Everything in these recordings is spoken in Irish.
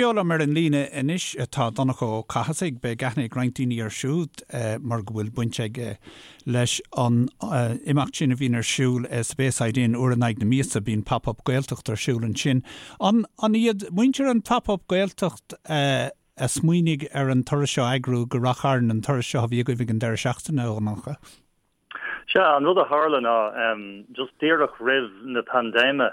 Beo liom ar an líne anois tá Donncha Ó Cathasaigh. Beidh aithne ag roinnt daoine air siúd mar go bhfuil baint aige leis an imeacht sin a bhíonn ar siúl sa Bayside Inn uair in aghaidh na míosa. Bíonn Pop Up Gaeltacht ar siúl ansin. An iad muintir an Pop Up Gaeltacht a smaoinigh ar an turas seo a eagrú go Rath Chairn, an turas seo a bhí agaibh ag an deireadh seachtaine, a Dhonncha? Sea, an rud a tharla ná, just díreach roimh na paindéime,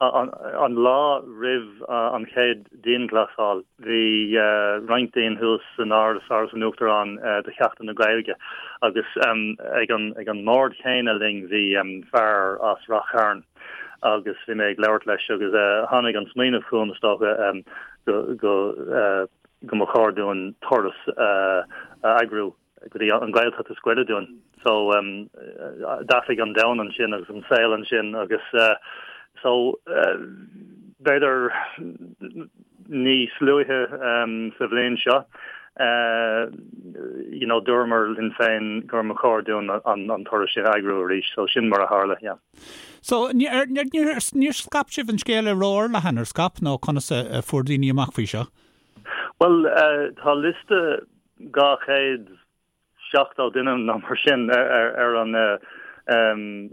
an lá roimh an chéad dianghlasáil, bhí roinnt dínn thuas san Áras, Áras an Uachtaráin, do Sheachtain na Gaeilge agus ag an ag an mbord chéanna linn bhí fear as Rath Chairn agus bhí mé ag labhairt leis agus tháinig an smaoineamh chugam, is dócha, go go go mba chóir dúinn turas a eagrú. go dtí an Ghaeltacht is gaire dúinn. So d'athraigh an domhan ansin agus an saol ansin agus so b'fhéidir níos luaithe sa bhliain seo you know dúramar linn féin gur mba chóir dúinn an turas sin a eagrú arís. So sin mar a tharla, yeah. So níor níor scaip sibh an scéal ró-fhorleathan, ar scaip nó conas a fuair daoine amach faoi seo? Bhuel tá liosta 270 duine nó mar sin ar an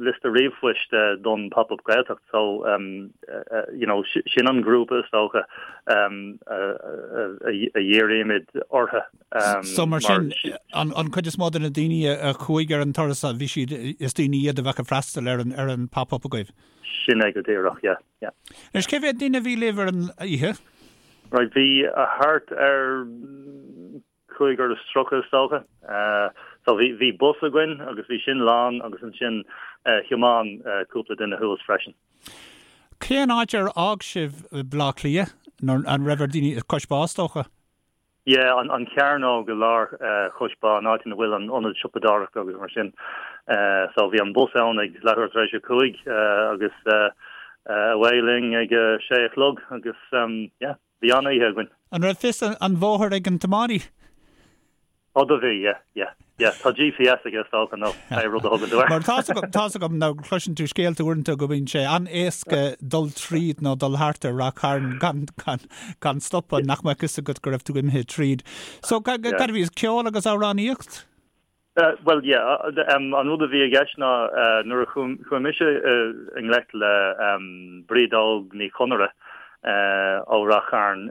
liosta ríomhphoist don Pop Up Gaeltacht so you know sin an grúpa is dócha a dhírímid orthu. So mar sin an chuid is mó de na daoine a chuaigh ar an turas bhí siad is daoine iad a bheadh ag freastal ar an ar an Pop Up agaibh? Sin é go díreach, yeah, yeah. Anois cé mhéad duine a bhí libh ar an oíche? Right, bhí thart ar 35 is dócha. So bhí bhí bus againn agus bhí sin lán agus ansin thiomáin cúpla duine thuas freisin. Cén áit ar fhág sibh Baile Átha Cliath? An raibh ar daoine Cois Bá is dócha? Yeah, an chearnóg i lár Chois Bá, an áit ina bhfuil an ionad siopadóireachta agus mar sin. So bhí an bus ann ag leathuair tar éis a 5 agus away linn ag a sé a chlog agus yeah, bhí an-oíche againn. An raibh fios an bhóthair ag an tiománaí? Ó do bhí, yeah, yeah. Yeah, tá GPS aige is dócha nó pé rud a thugann tú air. Mar tá's agam, tá's agam nó cloiseann tú scéalta uaireanta go mbíonn sé an-éasca dul tríd nó dul thart ar Rath Chairn gan, gan, gan stopadh, nach mbeadh fhios agat go raibh tú imithe tríd. So, cad a bhí, ceol agus amhránaíocht? Bhuel, yeah, an rud a bhí i gceist ná nuair a chuaigh mise i ngleic le Bríd Óg Ní Chonaire ó Rath Chairn,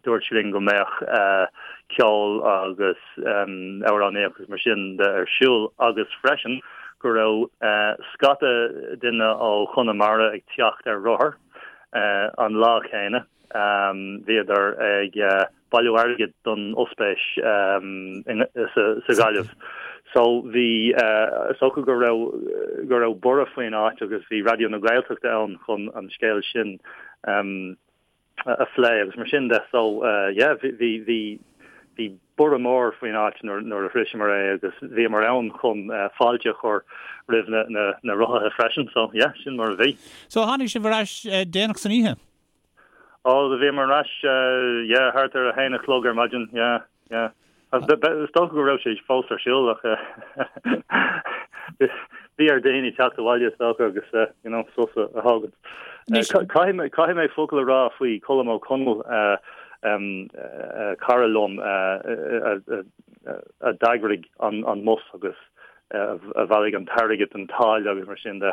dúirt sí linn go mbeadh ceol agus amhránaíocht agus mar sin de ar siúl agus freisin go raibh scata duine ó Chonamara ag teacht ar rothar an lá céanna. Bhíodar ag bailiú airgid don ospís sa Ghaillimh. So bhí, is dócha go raibh, go raibh borradh faoin áit agus bhí Raidió na Gaeltachta ann chun an scéal sin a phlé agus mar sin de. So yeah, bhí, bhí, bhí, bhí borradh mór faoin áit nuair, nuair a shroiseamar é agus bhíomar ann chun fáilte a chur roimh na, na, na rothaithe freisin. So yeah, sin mar a bhí. So tháinig sibh ar ais déanach san oíche? Ó, do bhíomar ar ais, yeah, thart ar a haon a chlog ar maidin, yeah, yeah. Is dócha go raibh sé fós ar siúl ach bhí ar daoine teacht abhaile is dócha agus, you know, sos a thógaint. Caithfidh mé, caithfidh mé focal a rá faoi Colm Ó Conaill, cara liom a d'eagraigh an mbus agus a bhailigh an t-airgead, an táille agus mar sin de.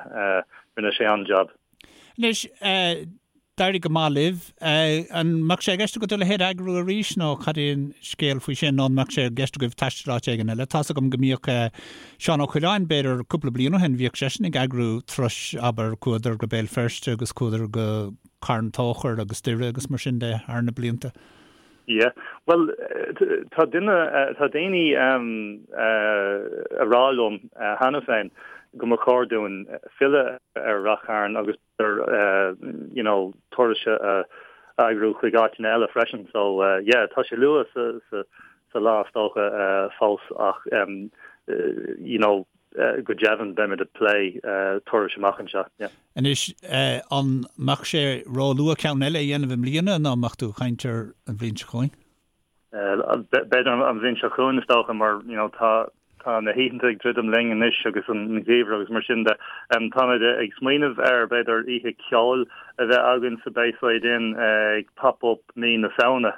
Rinne sé an-jab. Anois, d'éirigh go maith libh. An mbeadh sé i gceist agat a leithéid a eagrú arís nó cad é an scéal faoi sin nó an mbeadh sé i gceist agaibh taisteal áit éigin eile? Tá's agam go mbíodh Seán Ó Coileáin, b'fhéidir cúpla bliain ó shin, bhíodh seisean ag eagrú turais, abair, chuadar go Béal Feirste agus chuadar go Carn Tóchair agus Doire agus mar sin de thar na blianta. Yeah. Bhuel, tá duine, tá daoine a rá liom cheana féin go mba chóir dúinn filleadh ar Rath Chairn agus ar you know turais a eagrú chuig áiteanna eile freisin. So yeah, tá sé luath sa sa sa lá is dócha fós ach you know go deimhin beimid ag plé turais amach anseo. Yeah. Anois, an mbeadh sé ró-luath ceann eile a dhéanamh i mbliana nó an mbeadh tú ag caint ar an bhliain seo chugainn? B'fhéidir an bhliain seo chugainn is dócha mar you know tá. Tá na hoícheanta ag druidim linn anois agus an geimhreadh agus mar sin de. Táimid ag smaoineamh ar, b'fhéidir, oíche ceoil a bheith againn sa Bayside Inn ag Pop Up mí na Samhna.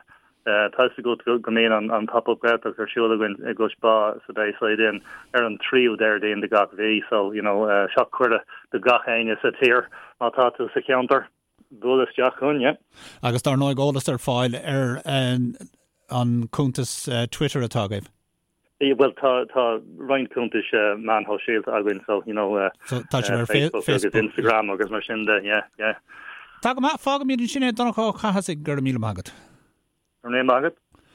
Tá fhios agat go mbíonn an Pop Up Gaeltacht ar siúl againn i gCois Bá sa Bayside Inn ar an tríú Déardaoin de gach mhí so, you know, seo cuireadh do gach éinne sa tír má tá tú sa cheantar, buail isteach chugainn, yeah. Agus dar ndóigh eolas ar fáil ar an cuntas Twitter atá agaibh. Bhuel, tá tá roinnt cuntais meáin shóisialta againn, so, you know, so, tá sibh ar Facebook agus Instagram agus mar sin de, yeah, yeah. Tá go maith, fágfaimid ansin é, Donncha Ó Cathasaigh, go raibh míle maith agat. Go raibh míle maith agat.